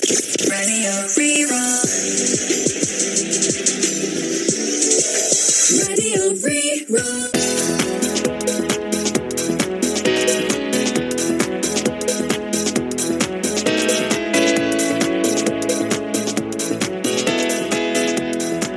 Radio Rí-Rá. Radio Rí-Rá.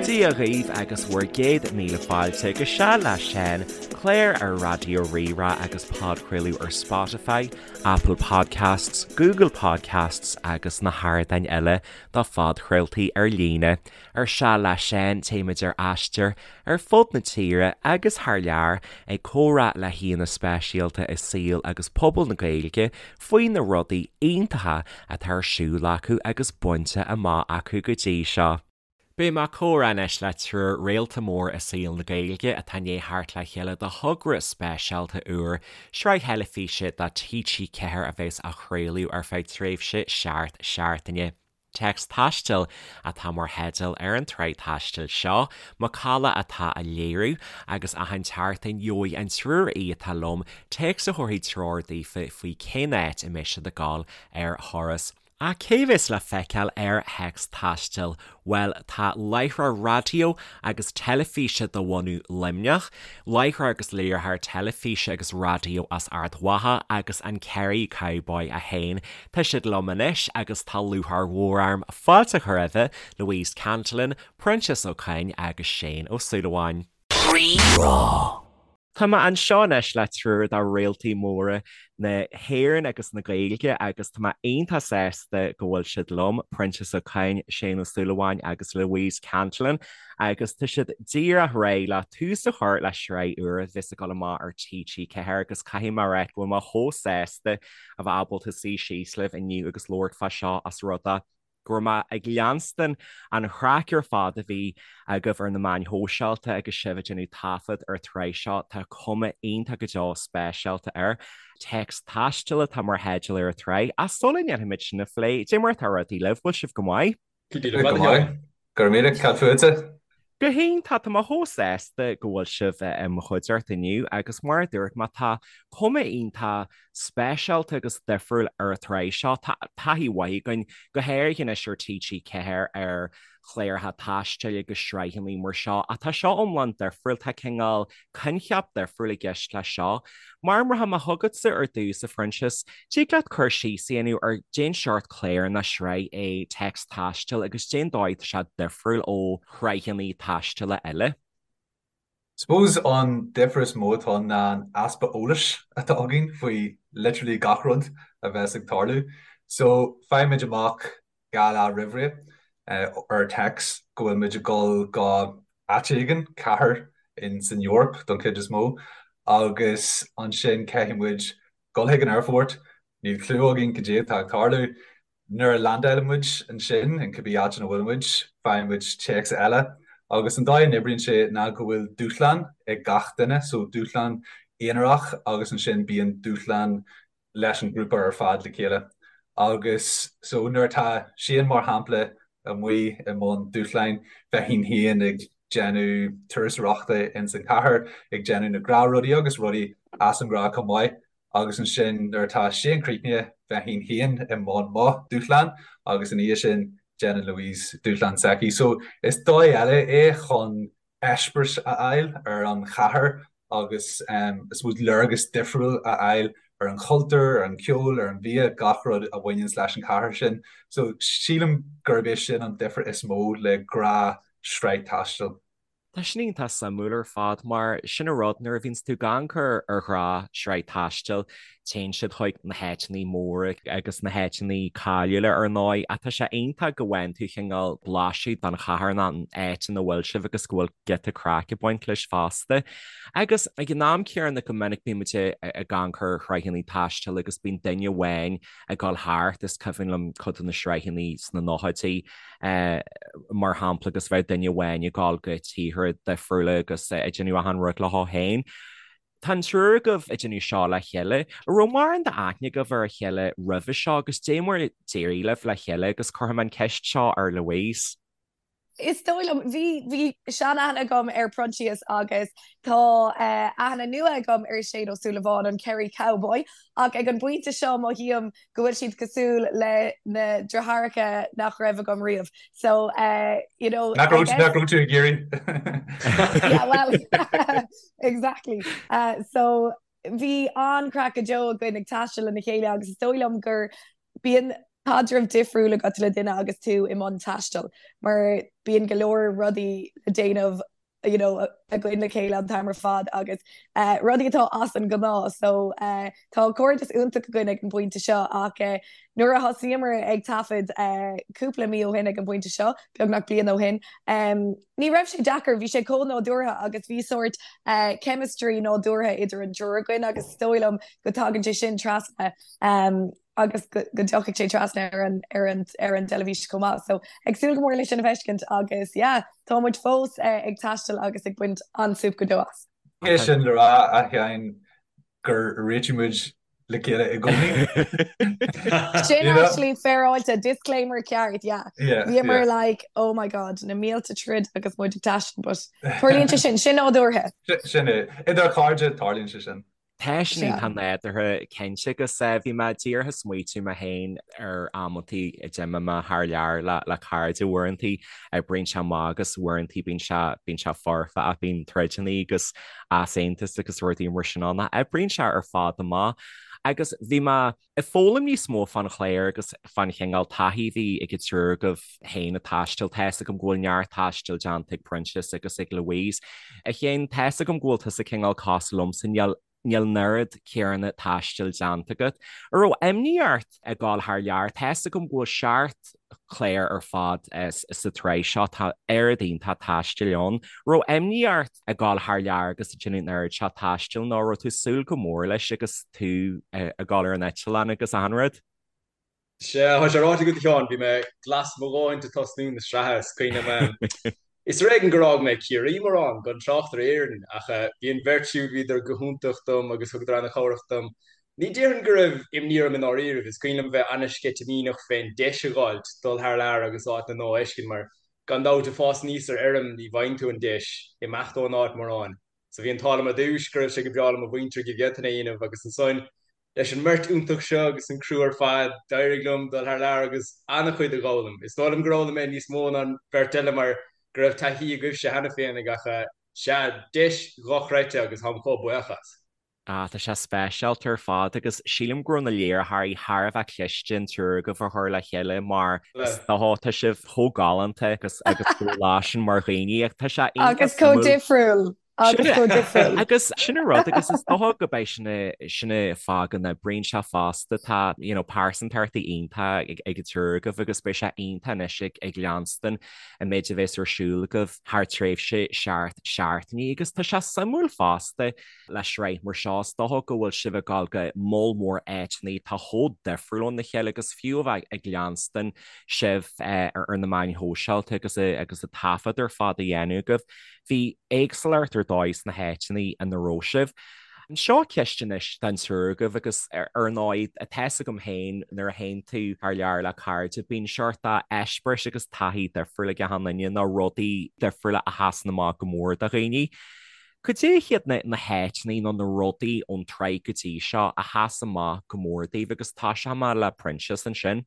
Dia dhaoibh agus bhur gcéad míle fáilte go Seal le Seán, clár ar Raidió Rí-Rá agus podchraoladh ar Spotify, Apple Podcasts, Google Podcasts agus na hardáin eile do phodchraoltaí ar líne. Ar Seal le Seán téimid ar aistear ar fud na tíre agus thar lear ag comhrá le haíonna speisialta i saol agus pobal na Gaeilge faoi na rudaí iontacha atá ar siúl acu agus bainte amach acu go dtí seo. Beidh mé ag comhrá anois le triúr réalta mór i saol na Gaeilge atá i ndiaidh theacht le chéile do thogra speisialta úr, sraith theilifíse do TG4 a bheas á chraoladh ar feadh tréimhse seacht seachtaine. Téacs Taistil atá mar theideal ar an tsraith taistil seo, Macalla atá á léiriú, agus achan tseachtain gheobhaidh an triúr aoi atá liom téacs a thabharfaidh treoir daofa faoi cén áit a mbeidh siad ag dul ar thuras. Ach cé bheas le feiceáil ar Théacs Taistil? Bhuel, tá láithreoir raidió agus teilifíse de bhunadh Luimneach, láithreoir agus léiritheoir teilifíse agus raidió as Ard Mhacha agus an Kerry Cowboy é féin. Tá siad liom anois agus tá lúcháir mhór orm fáilte a chur roimhe, Louise Cantillon, Proinsias Ó Coinn agus Shane Ó Súilleabháin. Rí-Rá. Tá mé anseo anois le triúr de réaltaí móra na hÉireann agus na Gaeilge agus tá mé iontach sásta go bhfuil siad liom, Proinsias Ó Coinn, Shane Ó Súilleabháin agus Louise Cantillon agus tá siad díreach réidh le tús a chur le sraith úr a bheas ag dul amach ar TG4 agus caithfidh mé a rá go bhfuil mé chomh sásta a bheith ábalta suí síos libh inniu agus labhairt fá seo os rud é go raibh mé ag leanstan an chraic ar fad a bhí agaibh ar na meáin shóisialta agus sibh ag déanamh taifead ar an tsraith seo. Tá cuma iontach go deo speisialta air. Téacs Taistil atá mar theideal ar an tsraith. Ach sula ndéanfaimid sin a phlé, cad é mar atá rudaí libh, bhfuil sibh go maith? Go maith. Go raibh míle, cad fútsa? Go hiontach, tá mé chomh sásta go bhfuil sibh i mo chuideachta inniu agus mar a dúirt mé tá cuma iontach speisialta agus difriúil ar an tsraith seo. Tá taithí mhaith againn, go háirithe anois ar TG4 ar chláracha taistil agus sraitheanna mar seo, ach tá seo iomlán difriúil, tá cineál coincheap difriúil i gceist leis seo. Mar rachaidh mé chugatsa ar dtús, a Phroinsias, dtig leat cur síos a dhéanamh ar cén seort clár nó sraith é Téacs Taistil agus cén dóigh atá sé difriúil ó shraitheanna taistile eile? Suppose an difear is mó atá ann ná an easpa eolais atá againn faoi literally gach rud a bheas ag tarlú. So faighimid amach 2 lá roimhré ar text go bhfuil muid ag dul go áit éigin, cathair in san Eoraip don chuid is mó, agus ansin caithfidh muid dul chuig an aerfort, níl clue againn cad é atá ag tarlú. Nuair a landálann muid ansin, in cibé áit ina bhfuil muid, faigheann muid téacs eile agus an dóigh a n-oibríonn sé ná go bhfuil dúshlán ag gach duine, so dúshlán aonarach agus ansin bíonn dúshlán leis an ghrúpa ar fad le chéile. Agus so nuair atá Shane mar shampla amuigh i mbun dúshláin, bheinn féin ag déanamh turasóireachta ins an chathair, ag déanamh na gnáthrudaí agus rudaí as an ngnáth chomh maith. Agus ansin nuair atá Shane críochnaithe, bheinn féin i mbun mo dúshlán agus ina dhiaidh sin déanann Louise dúshlán s'aici. So is dóigh eile é chun eispéireas a fháil ar an chathair agus I suppose léargas difriúil a fháil ar an chultúr, ar an cheol, ar an bhia, gach rud a bhaineanns leis an chathair sin. So sílim gurb é sin an difear is mó le gnáthshraith taistil. Tá sin iontach suimiúil ar fad mar sin an rud nuair a bhíonns tú ag amharc ar ghnáthshraith taistil téann siad chuig na háiteanna móra agus na háiteanna cáiliúla ar ndóigh ach tá sé iontach go bhfaigheann tú cineál blaiseadh den chathair nó an áit ina bhfuil sibh agus go bhfuil giota craic ag baint leis fosta. Agus ag an am céanna go minic bíonn muid ag amharc ar shraitheanna taistil agus bíonn duine amháin ag dul thart, is cuimhin liom cuid de na sraitheanna sna nóchaidí mar shampla agus bheadh duine amháin ag dul go tíortha difriúla agus ag déanamh achan rud leo féin. Tá an triúr agaibh ag déanamh seo le chéile. An raibh mórán d'aithne agaibh ar a chéile roimhe seo agus dé mar a d'éirigh libh le chéile agus cuirfidh mé an ceist seo ar Louise. Is dóigh liom, bhí, bhí sean-aithne agam ar Proinsias agus tá aithne nua agam ar Shane Ó Súilleabháin, an Kerry Cowboy, ach ag an bpointe seo mothaím go bhfuil siad cosúil le na deartháireacha nach raibh agam riamh. So, you know, Nach raibh, nach raibh tú ag iarraidh? Yeah, well, exactly. So, bhí an-chraic go deo againn ag taisteal lena chéile agus is dóigh liom gur bíonn caidreamh difriúil agat le duine agus tú i mbun taistil mar bíonn go leor rudaí le déanamh you know, againn le chéile an t-am ar fad agus uh, rudaí atá as an gnáth so uh, tá cairdeas iontach againn ag an bpointe seo ach uh, nuair a thosaíomar ag taifead uh, cúpla mí ó shin ag an bpointe seo, beagnach bliain ó shin, um, ní raibh sé deacair, bhí sé chomh nádúrtha agus bhí sórt uh, chemistry nádúrtha idir an triúr againn agus is dóigh liom go dtagann sé sin trasna um, agus go dtiocfaidh sé trasna ar an ar an ar an dteilifís chomh maith. So ag súil go mór leis sin a fheiscint agus yeah, tá muid fós eh, ag taisteal agus ag baint an-súp go deo as. É sin le rá a Sheáin gur réitigh muid le chéile i gcónaí. Sin actually féaráilte disclaimer ceart, yeah. Yeah, Bhíomar yeah. like, oh my god, na mílte troid agus muid ag taisteal, but tarlaíonn sé sin, sin nádúrtha. Sin é. Idir chairde tarlaíonn sé sin. Tá sin iontach nádúrtha cinnte agus bhí mé díreach ag smaoitiú mé féin ar amantaí a d'imigh mé thar lear le cairde uaireantaí oibríonn sé amach agus uaireantaí bíonn sé bíonn sé foirfe ach bíonn troideanna agus easaontas agus rudaí mar sin ann ach oibríonn sé ar fad amach agus bhí mé Ag foghlaim níos mó fán chlár agus fán chineál taithí a bhí ag an triúr agaibh féin ag taisteal. Tá's agam go bhfuil neart taistil déanta ag Proinsias agus ag Louise. A Sheáin, tá's agam go bhfuil tusa cineál cosúil liomsa, níl níl an oiread céanna taistil déanta agat. An raibh imní ort ag dul thar lear? Tá's agam go bhfuil seacht clár ar fad sa tsraith seo, tá oiread iontach taistil ann. An raibh imní ort ag dul thar lear agus ag déanamh an oiread seo taistil nó raibh tú ag súil go mór leis agus tú ag dul ar an eitleán agus achan rud? Sea, tá sé ráite agat a Sheáin, bhí mé glas mo dhóthain ag tosnú na sraithe, is cuimhin liom, is ar éigean gur fhág mé Ciarraí mórán, gan trácht ar Éirinn, ach bhí an bheirt siúd, bhíodar go hiontach dom agus thugadar ana-chabhrach dom. Ní déarfainn go raibh imní orm i ndáiríribh, is cuimhin liom bheith ana-sceitimíneach fén deis a dh'fháilt dul thar lear agus áit nua a fheiscint mar gan dabht ag fás aníos ar fheirm ní bhfaigheann tú an deis imeacht ón áit mórán. So bhí an t-ádh liom ar dtúis go raibh sé go breá le mo mhuintir go bhféadfainn é a dhéanamh agus ansan leis an mbeirt iontach seo agus an criú ar fad d'éirigh liom dul thar lear agus ana-chuid a dh'fhoghlaim. Is dóigh liom gur fhoghlaim mé níos mó ná an bheirt eile mar go raibh taithí agaibhse cheana féin ach sea, deis dhochreidte agus táim chomh buíoch as. Ah, tá sé speisialta ar fad agus sílim go raibh na léiritheoirí thar a bheith cliste an triúr agaibh a chur le chéile mar is dócha tá sibh chomh galánta agus agus chomh láidir mar dhaoine ach tá sé iontach Agus chomh suimiúil. difriúil. Agus chomh difriúil. Agus sin an rud agus is dócha go mbeidh sin a sin an fáth go n-oibríonn sé fosta tá you know pearsantachtaí iontach ag ag an triúr agaibh agus beidh sé iontach anois ag ag leanstan an méid a bheas ar siúl agaibh thar tréimhse seacht seachtainí agus tá sé suimiúil fosta Le sraith mar seo, is dócha go bhfuil sibh ag dul go moll mór áiteanna atá chomh difriúil óna chéile agus fiú a bheith ag leanstan sibh ar na meáin shóisialta agus agus an taifead ar fad a dhéanamh agaibh, bhí éagsúlacht ar dóigh sna háiteanna ina raibh sibh. Seo ceist anois don triúr agaibh agus ar ndóigh, tá fhios agam féin nuair a théann tú thar lear le cairde, bíonn seort eispéiris agus taithí difriúil ag achan duine nó rudaí difriúla a sheasann amach go mór do dhaoine. Cad é hiad na háiteanna nó na rudaí ón tsraith go dtí seo a sheas amach go mór daoibh agus tosóidh mé le Proinsias ansin?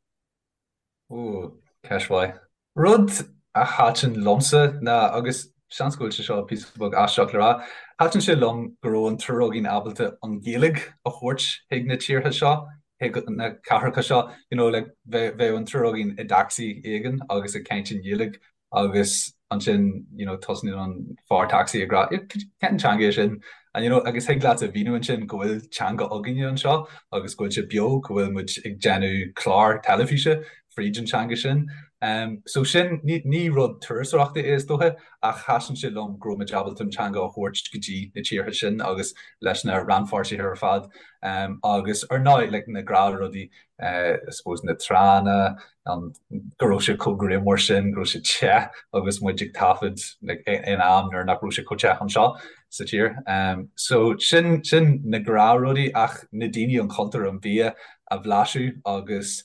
Ooh, ceist mhaith. Rud a thaitin liomsa ná, agus seans go bhfuil sé seo píosa beag aisteach le rá, thaitin sé liom go raibh an triúr againn ábalta an Ghaeilge a thabhairt chuig na tíortha seo, chuig na cathracha seo, you know, like bheadh an triúr againn i dtacsaí éigin agus ag caint i nGaeilge agus ansin you know tosnaíonn an fear tacsaí ag rá cén teanga é sin and you know agus thig leat a mhíniú ansin go bhfuil teanga againne anseo agus go bhfuil sé beo go bhfuil muid ag déanamh clár teilifíse fríd an teanga sin. Um, so sin ní, ní rud turasóireachta é is dócha ach thaitin sé liom go raibh muid ábalta an teanga a thabhairt go dtí na tíortha sin agus leis na rannpháirtithe ar fad um, agus ar ndóigh like, na gnáthrudaí uh, I suppose na tránna, an go raibh sé chomh grianmhar sin, go raibh sé te agus muid ag taifead like, in am nuair nach raibh sé chomh te anseo sa tír. Um, so sin, sin na gnáthrudaí ach na daoine an cultúr an bia a bhlaiseadh agus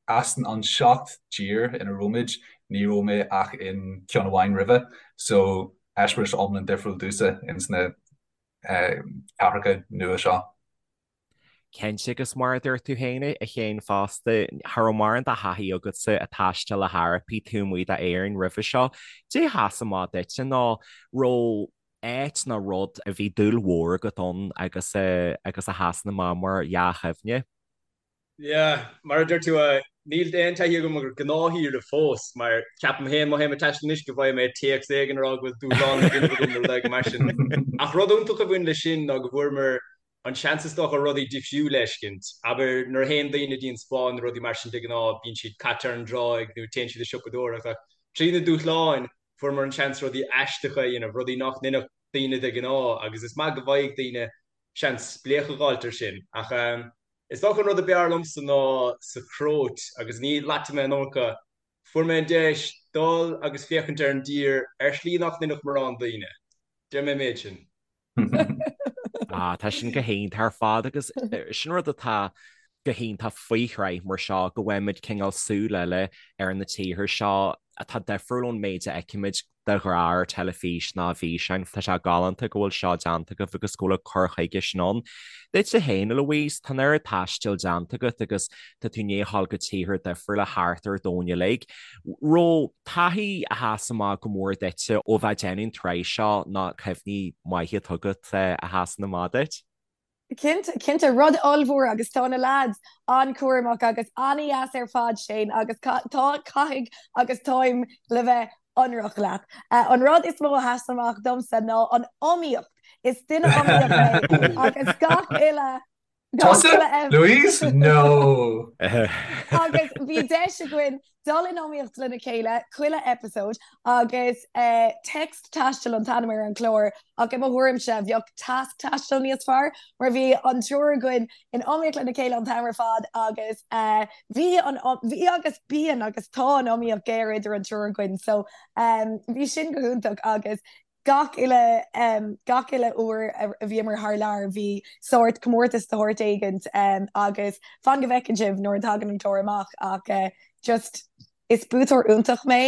as an seacht dtír ina raibh muid. Ní raibh mé ach in ceann amháin roimhe, so eispéireas iomlán difriúil domhsa ins na cathracha nua seo. Cinnte, agus mar a dúirt tú féin a Shéain fosta, cha raibh mórán de thaithí agatsa ag taisteal le hEorpaigh taobh amuigh d'Éirinn roimhe seo. Caidé a sheas amach duitse nó raibh áit nó rud a bhí dúil mhór agat ann agus agus a sheasann amach mar dhea-chuimhne? Yeah, mar a deir tú, níl aon taithí agam ar ghnáthshaoire fós, mar ceapaim féin má théim ag taisteal anois go bhfaighidh mé téacs éigin ag rá go bhfuil dúshlán le déanamh agam nó rud éigin mar sin. Ach rud iontach a bhain leis sin ná go bhfuaireamar an seans is dócha rudaí difriúla a fheiscint. Abair, nuair a théann daoine dtí an Spáinn nó rudaí mar sin de ghnáth bíonn siad caite ar an dtráigh nó téann siad ag siopadóireacht ach trí na dúshláin fuaireamar an seans rudaí aisteacha a dhéanamh, rudaí nach ndéanfadh daoine de ghnáth agus is maith go bhfaighidh daoine seans spléachadh a dh'fháilt ar sin. Ach is dócha an rud a b'fhearr liomsa ná sa Chróit agus ní laitfidh mé an iomarca, fuair mé an deis dul agus féachaint ar an dtír ar shlí nach ndéanfadh morán daoine. Déarfaidh mé an méid sin. Ah, tá sin go hiontach ar fad agus sin rud atá go hiontach faoi shraith mar seo go bhfaighimid cineál súil eile ar na tíortha seo atá difriúil ón méid a fheicimid de ghnáth ar teilifís ná i bhfíseáin. Tá sé galánta go bhfuil seo déanta agaibh agus go bhfuil an cur chuige sin ann. Duitse féin, a Louise, tá an oiread taistil déanta agat agus tá tú i ndiaidh a ghabháil go tíortha difriúla thart ar domhan uilig. Raibh taithí a sheas amach go mór duitse ó bheith ag déanamh an tsraith seo nó cuimhní maithe atá agat a sheasann amach duit? Cinnte, cinnte, rud ollmhór agus tá na lads an-chúramach agus an-dheas ar fad, Shane, agus tá, caithfidh agus táim le bheith ionraic leat. An rud is mó a sheas amach domsa ná an iomaíocht. Is duine iomaíoch mé agus gach uile Tusa? Louise? No! Agus bhí deis againn dul in iomaíocht lena chéile chuile episode agus Text Taisteal an t-ainm ar an chlár ach i mo thuairimse bheadh Tasc Taisteal níos fearr mar bhí an triúr againn in iomaíocht lena chéile an t-am ar fad agus bhí an bhí agus bíonn agus tá an iomaíocht géar idir an triúr againn so bhí sin go hiontach agus Gach uile, gach uile uair a bhíomar thar lear bhí sórt comórtas de shórt éigint agus fan go bhfeiceann sibh nuair a thagann an clár amach ach just is buaiteoir iontach mé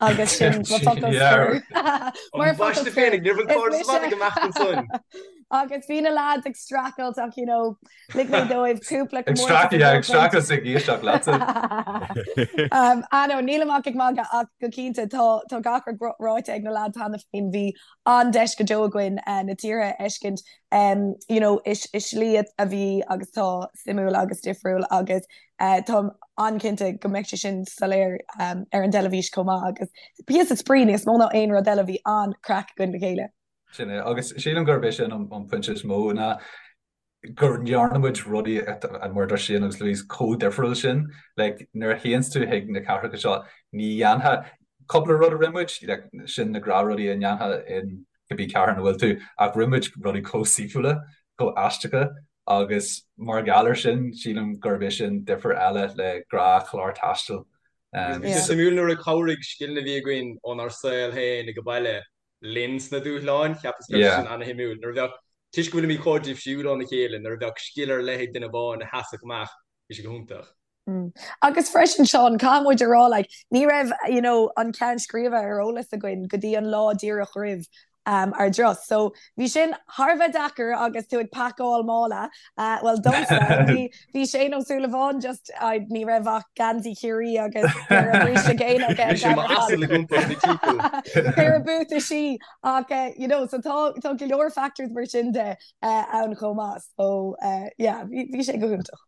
agus sin mo focal scoir. Mar focal scoir. Agus bhí na lads ag streachailt ach you know lig mé dóibh cúpla Ag streachailt, yeah, ag streachailt ag éisteacht leatsa. Ah no, nílim ach ag magadh ach go cinnte tá tá gach rud ráite ag na lads cheana féin. Bhí an-deis go deo againn na tíortha a fheiscint you know i i slí a bhí agus tá suimiúil agus difriúil agus táim an-chinnte go mbeidh sé sin soiléir ar an dteilifís chomh maith agus píosa spraoi níos mó ná aon rud eile bhí an-craic againn le chéile. Sin é, agus sílim gurb é sin an pointe is mó ná go ndearna muid rudaí mar a dúirt Shane agus Louise chomh difriúil sin. Like, nuair a théanns tú chuig na cathracha seo, ní dhéanfá cúpla rud a rinne muid, like, sin na gnáthrudaí a ndéanfá in cibé cathair ina bhfuil tú, ach rinne muid rudaí chomh saoithiúla, chomh aisteacha agus mar gheall air sin, sílim gurb é sin difear eile le gnáthchlár taistil. Bhí sé suimiúil nuair a chabhraigh scileanna a bhí againn ónár saol féin ag baile linn sna dúshláin, cheapas go raibh sé sin ana-shuimiúil. Nuair a bheadh, toisc go bhfuilimid chomh difriúil óna chéile, nuair a bheadh scil ar leith ag duine amháin a sheasfadh amach, bhí sé go hiontach. Agus freisin, Seán, caithfidh muid a rá, like, ní raibh, you know, an ceann scríbe ar eolas againn go dtí an lá díreach roimh ár dturas. So, bhí sin thar a bheith deacair agus tú ag pacáil mála. Bhuel, domsa, bhí, bhí Shane Ó Súilleabháin just, I, ní raibh ach geansaí Chiarraí agus péire bríste géine aige Bhí sé mar asal ag iompar na timpeall. Péire buataisí ach you know, so tá, tá go leor factors mar sin de ann chomh maith. So, yeah, bhí, bhí sé go hiontach.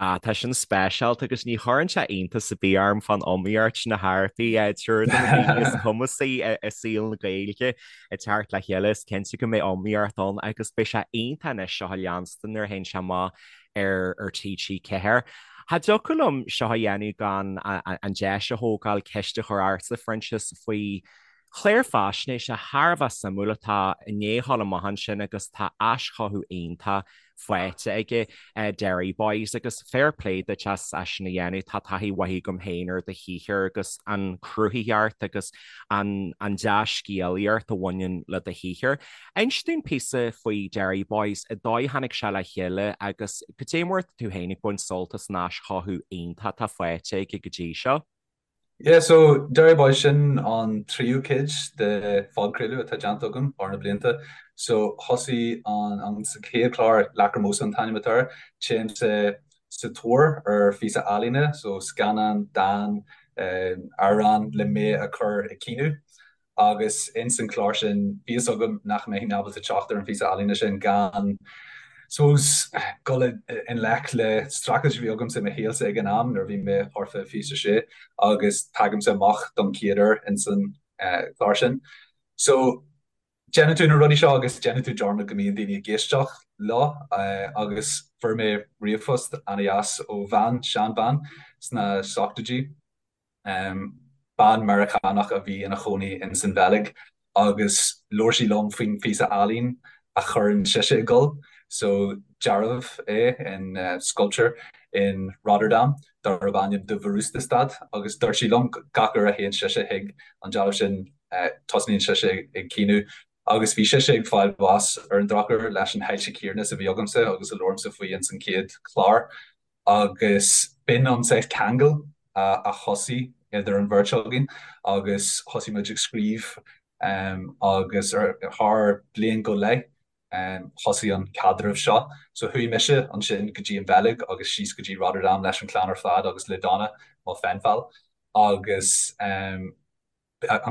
Ah, tá sin speisialta agus ní chuireann sé iontas ar bith orm fán iomaíocht sna hEorpaigh, triúr de na daoine is cumasaí i saol na Gaeilge ag teacht le chéile. Is cinnte go mbeidh iomaíocht ann agus beidh sé iontach anois seo a leanstan nuair a théann sé amach ar ar TG4. Cha dtiocfadh liom seo a dhéanamh gan an deis a thógáil ceist a chur ortsa, Proinsias, faoi chlár faisnéise thar a bheith suimiúil atá i ndiaidh a ghabháil amach ansin agus tá aischothú iontach faighte aige, Derry Boys, agus fair play duit as sin a dhéanamh. Tá taithí mhaith agam féin ar do shaothar agus an chruthaitheacht agus an dea-scéalaíocht a bhaineann le do shaothar. Inis dúinn píosa faoi Derry Boys, an dóigh a tháinig sé le chéile agus cad é mar atá tú féin ag baint sult as an aischothú iontach atá faighte aige go dtí seo. Yeah, so Derry Boy sin an tríú cuid de phodchraoladh atá déanta agam thar na blianta. So thosaigh an an sa chéad chlár Lacrymosa an t-ainm atá air, téimse sa tóir ar phíosa ealaíne, so scannán, dán, amhrán le mé a chur ag caoineadh. Agus ins an chlár sin, bhí fhios agam nach mbeinn ábalta teacht ar an phíosa ealaíne sin gan, suppose, dul i ngleic le streachailt a bhí agamsa i mo shaolsa ag an am nuair a bhí mé thart fá 26 agus tagaimse amach don chéad uair ins an chlár sin. So, déanann tú na rudaí seo agus déanann tú dearmad go mbíonn daoine ag éisteacht leo agus fuair mé ríomhphost ana-dheas ó bhean, seanbhean sna seachtóidí, Bean Meiriceánach a bhí ina chónaí ins an Bheilg agus labhair sí liom faoin phíosa ealaín a chuireann sise ag gol. So dealbh é in sculpture in Rotterdam darb ainm De Verwoeste Stad agus dúirt sí liom gach uair a théann sise chuig an dealbh sin tosnaíonn sise ag caoineadh agus bhí sise ag fáil bháis ar an drochuair leis an hailse chéanna is a bhí agamsa agus a labhraimse faoi ins an chéad chlár. Agus b'in an saghas ceangal a thosaigh idir an bheirt againn agus thosaigh muid ag scríobh agus ar thar bliain go leith thosaigh an caidreamh seo. So chuaigh mise ansin go dtí an Bheilg agus síos go dtí Rotterdam leis an chlann ar fad agus le Donna, mo pen pal, agus an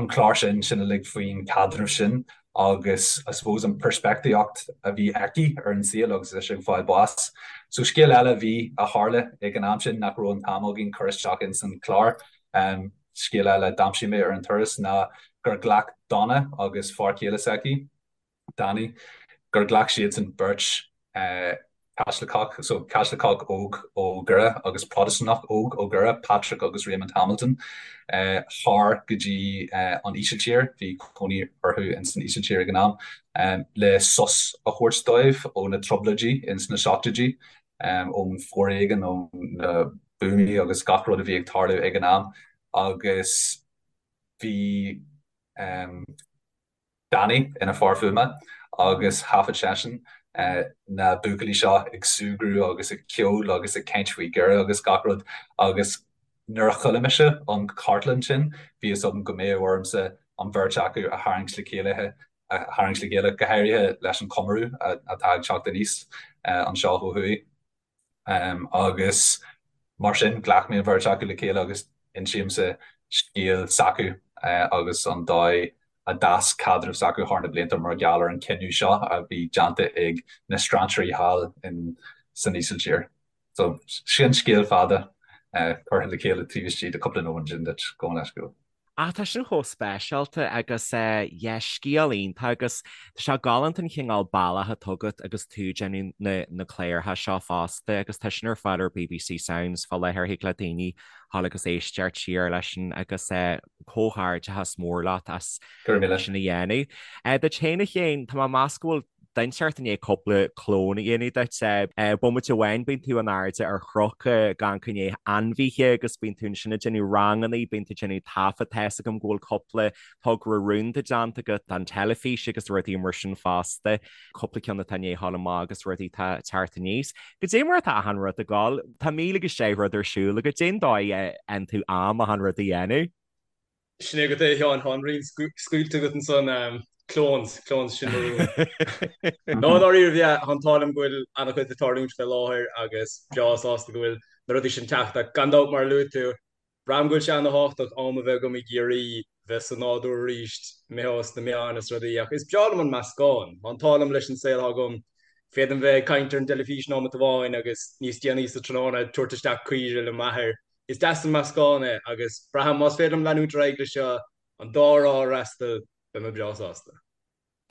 clár sin, sin uilig faoin chaidreamh sin agus I suppose an peirspictíocht a bhí aici ar an saol agus ise ag fáil bháis. So scéal eile a bhí, a tharla ag an am sin nach raibh an t-am againn cur isteach ins an chlár, scéal eile a d'aimsigh mé ar an turas ná gur ghlac Donna agus fear céile s'aici, Danny, gur ghlac siadsan beirt Caitliceach, so Caitliceach óg ó Dhoire agus Protastúnach óg ó Dhoire, Patrick agus Raymond Hamilton, thar go dtí an Ísiltír, bhí cónaí orthu ins an Ísiltír ag an am, le sos a thabhairt dóibh ó na trioblóidí ins na seachtóidí, ón bhforéigean, ó na buamaí agus gach rud a bhí ag tarlú ag an am agus bhí. Danny ina fear fuaime agus thaifead seisean na buachaillí seo ag súgradh agus ag ceol agus ag caint faoi Dhoire agus gach rud agus nuair a chuala mise an chartlann sin bhí fhios agam go mbeadh ormsa an bheirt acu a tharraingt le chéile a tharraingt le chéile, go háirithe leis an chomóradh atá ag teacht aníos anseo ó thuaidh. Agus mar sin, ghlac mé an bheirt acu le chéile agus insímse scéal s'acu agus an dóigh a d'fhás caidreamh s'acu thar na blianta mar gheall ar an chinneadh seo a bhí déanta ag na strainséirí thall in san Ísiltír. So, sin scéal fada curtha le chéile taobh istigh de cúpla nóiméad sin duit, gabh mo leithscéal. Ach tá sin chomh speisialta agus yeah, scéal iontach agus tá sé galánta an chineál bealach atá agat agus tú ag déanamh na na cláracha seo fosta agus tá sin ar fáil ar bbc Sounds fá láthair thig le daoine dhul agus éisteacht siar leis sin agus comhghairdeachas mór leat as sin a dhéanamh. Duit féin a Chéin, tá mé ag meas go bhfuil duine inteacht i ndiaidh cúpla clón a dhéanamh duit. Bomaite amháin bíonn tú in airde ar chnoc ag amharc i ndiaidh ainmhithe agus bíonn tú ansin ag déanamh ranganna, bíonn tú ag déanamh taifead, tá fhios agam go bhfuil cúpla togra rúnda déanta agat don teilifís agus rudaí mar sin fosta, cúpla ceann atá i ndiaidh dhul amach agus rudaí atá ag teacht aníos. Goidé mar atá achan rud ag dul? Tá míle agus deich rud ar siúl agat, cén dóigh a fhaigheann tú am achan rud a dhéanamh? Sin é agat é, a Sheáin, tá an riail scaoilte agat ansan, clones, clones, sin mo rún. No, dáiríre, yeah, tá an t-ádh liom go bhfuil an-chuid ag tarlúint fé láthair agus breá sásta go bhfuil na rudaí sin teacht ach gan dabht mar a luaigh tú, braithim go bhfuil sé ana-thábhachtach am a bheith agam i gCiarraí, bheith sa nádúr arís, imithe os na meáin is rudaí ach is breá liom an meascán, tá an t-ádh liom leis an saol atá agam, féadaim bheith ag caint ar an dteilifís nóimeat amháin agus níos déanaí sa tráthnóna ag tabhairt isteach caoire le m'athair. Is deas an meascán é agus braithim más féidir liom leanúint ar aghaidh leis seo, an dá thrá a fhreastal, beidh mé breá sásta.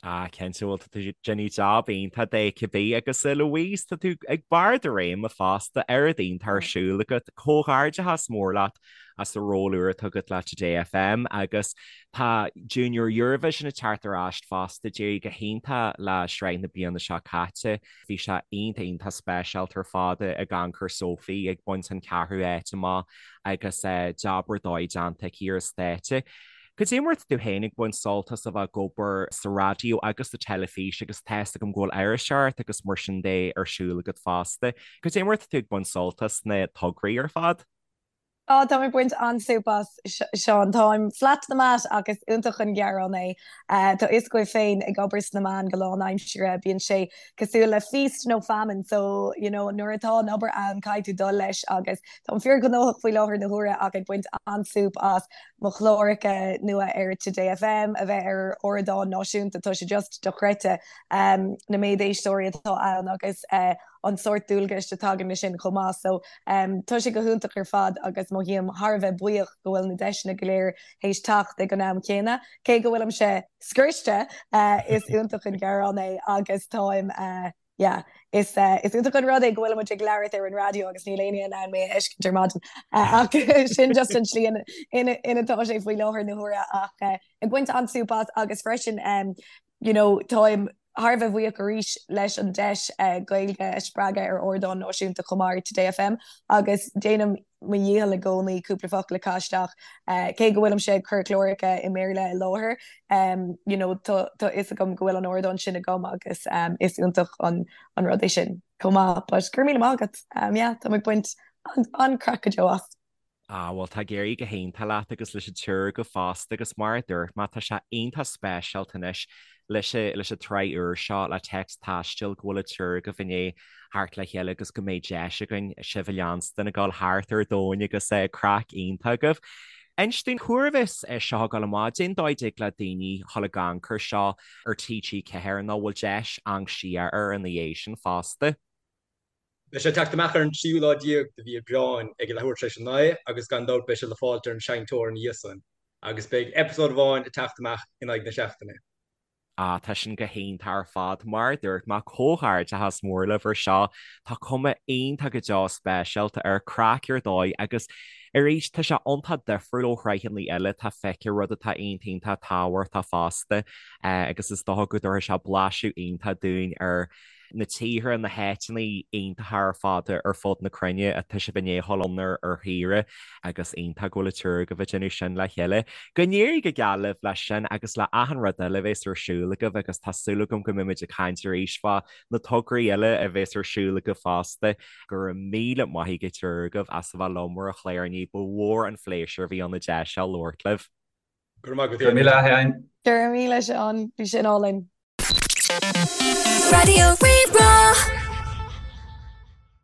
Ah, cinnte, bhuel, tá tú ag déanamh jab iontach de cibé agus a Louise, tá tú ag barr do réime fosta, oiread iontach ar siúl agat, comhghairdeachas mór leat as an ról úr atá agat le Today FM agus tá Junior Eurovision ag teacht ar ais fosta, d'éirigh go hiontach le sraith na bliana seo caite. Bhí sé iontach iontach speisialta ar fad ag amharc ar Sophie ag baint an ceathrú áit amach agus jab ar dóigh déanta aici ar an stáitse. Cad é mar atá tú féin ag baint sult as a bheith ag obair sa raidió agus sa teilifís agus tá fhios agam go bhfuil iriseoireacht agus mar sin de ar siúl agat fosta. Cad é mar atá tú ag baint sult as na tograí ar fad? Á, táim ag baint an-súp as, Seán. Táim flat to the mat ach is iontach an gearán é. Tá fhios agaibh féin, ag obair sna meáin go lánaimseartha, bíonn sé cosúil le feast nó famine, so, you know, nuair atá an obair ann, caithfidh tú dul leis agus táim fíorghnóthach faoi láthair na huaire ach ag baint an-súp as mo chláracha nua ar Today FM, a bheith ar ardán náisiúnta, tá sé just dochreidte na méid éisteoirí atá ann agus an sórt dualgais a tagann leis sin chomh maith. So tá sé go hiontach ar fad agus mothaím thar a bheith buíoch go bhfuil na deiseanna go léir théis teacht ag an am céanna. Cé go bhfuilimse scriosta, is iontach an gearán é agus táim yeah is is iontach an rud é go bhfuilimid ag labhairt ar an raidió agus níl éinne in ann mé a fheiscint ar maidin ach sin just an tslí ina ina atá sé faoi láthair na huaire ach ag baint an-súp as agus freisin you know táim thar a bheith buíoch arís leis an deis Gaeilge a spreagadh ar ardán náisiúnta chomh maith ar Today FM agus déanaim mo dhícheall i gcónaí cúpla focal a chaitheamh isteach. Cé go bhfuilimse ag cur cláracha i mBéarla i láthair, you know tá fhios agam go bhfuil an ardán sin agam agus is iontach an rud é sin chomh maith. But go raibh míle maith agat. Yeah, táim ag baint an-craic go deo as. Ah, bhuel, tá ag éirí go hiontach leat agus leis an triúr agaibh fosta agus mar a dúirt mé, tá sé iontach speisialta anois leis an, leis an tsraith úr seo le Téacs Taistil go bhfuil an triúr agaibh i ndiaidh theacht le chéile agus go mbeidh deis againn sibh a leanstan ag dul thart ar domhan agus craic iontach agaibh. Inis dúinn, cá huair a bheas seo ag dul amach, cén dóigh a dtig le daoine dhul ag amharc air seo ar TG4 nó bhfuil deis amharc siar air ina dhiaidh sin fosta? Beidh sé ag teacht amach ar an tríú lá déag de mhí Aibreáin ag a leathuair tar éis a 9 agus gan dabht beidh sé le fáilt ar an seinnteoir ina dhiaidh san agus beidh eipeasóid amháin ag teacht amach in aghaidh na seachtaine. Ah, tá sin go hiontach ar fad. Mar a dúirt mé, comhghairdeachas mór libh ar seo. Tá cuma iontach go deo speisialta air, craic ar dóigh agus arís tá sé iontach difriúil ó shraitheanna eile atá feicthe, rud atá iontach iontach tábhachtach fosta agus is dócha go dtabharfaidh sé blaiseadh iontach dúinn ar na tíortha, na háiteanna iontacha ar fad ar fud na cruinne atá sibh i ndiaidh dhul ann ar shaoire agus iontach go bhfuil an triúr agaibh ag déanamh sin le chéile. Go n-éirí go geal libh leis sin agus le achan rud eile a bheas ar siúl agaibh agus tá súil agam go mbeimid ag caint arís fá na tograí eile a bheas ar siúl agaibh fosta. Go raibh míle maith ag an triúr agaibh as a bheith liom ar an chlár inniu, ba mhór an phléisiúr a bhí ann an deis seo labhairt libh. Go raibh maith agat. Go raibh míle a Sheáin. Go raibh míle Seán, bhí sin álainn. Raidió Rí-Rá.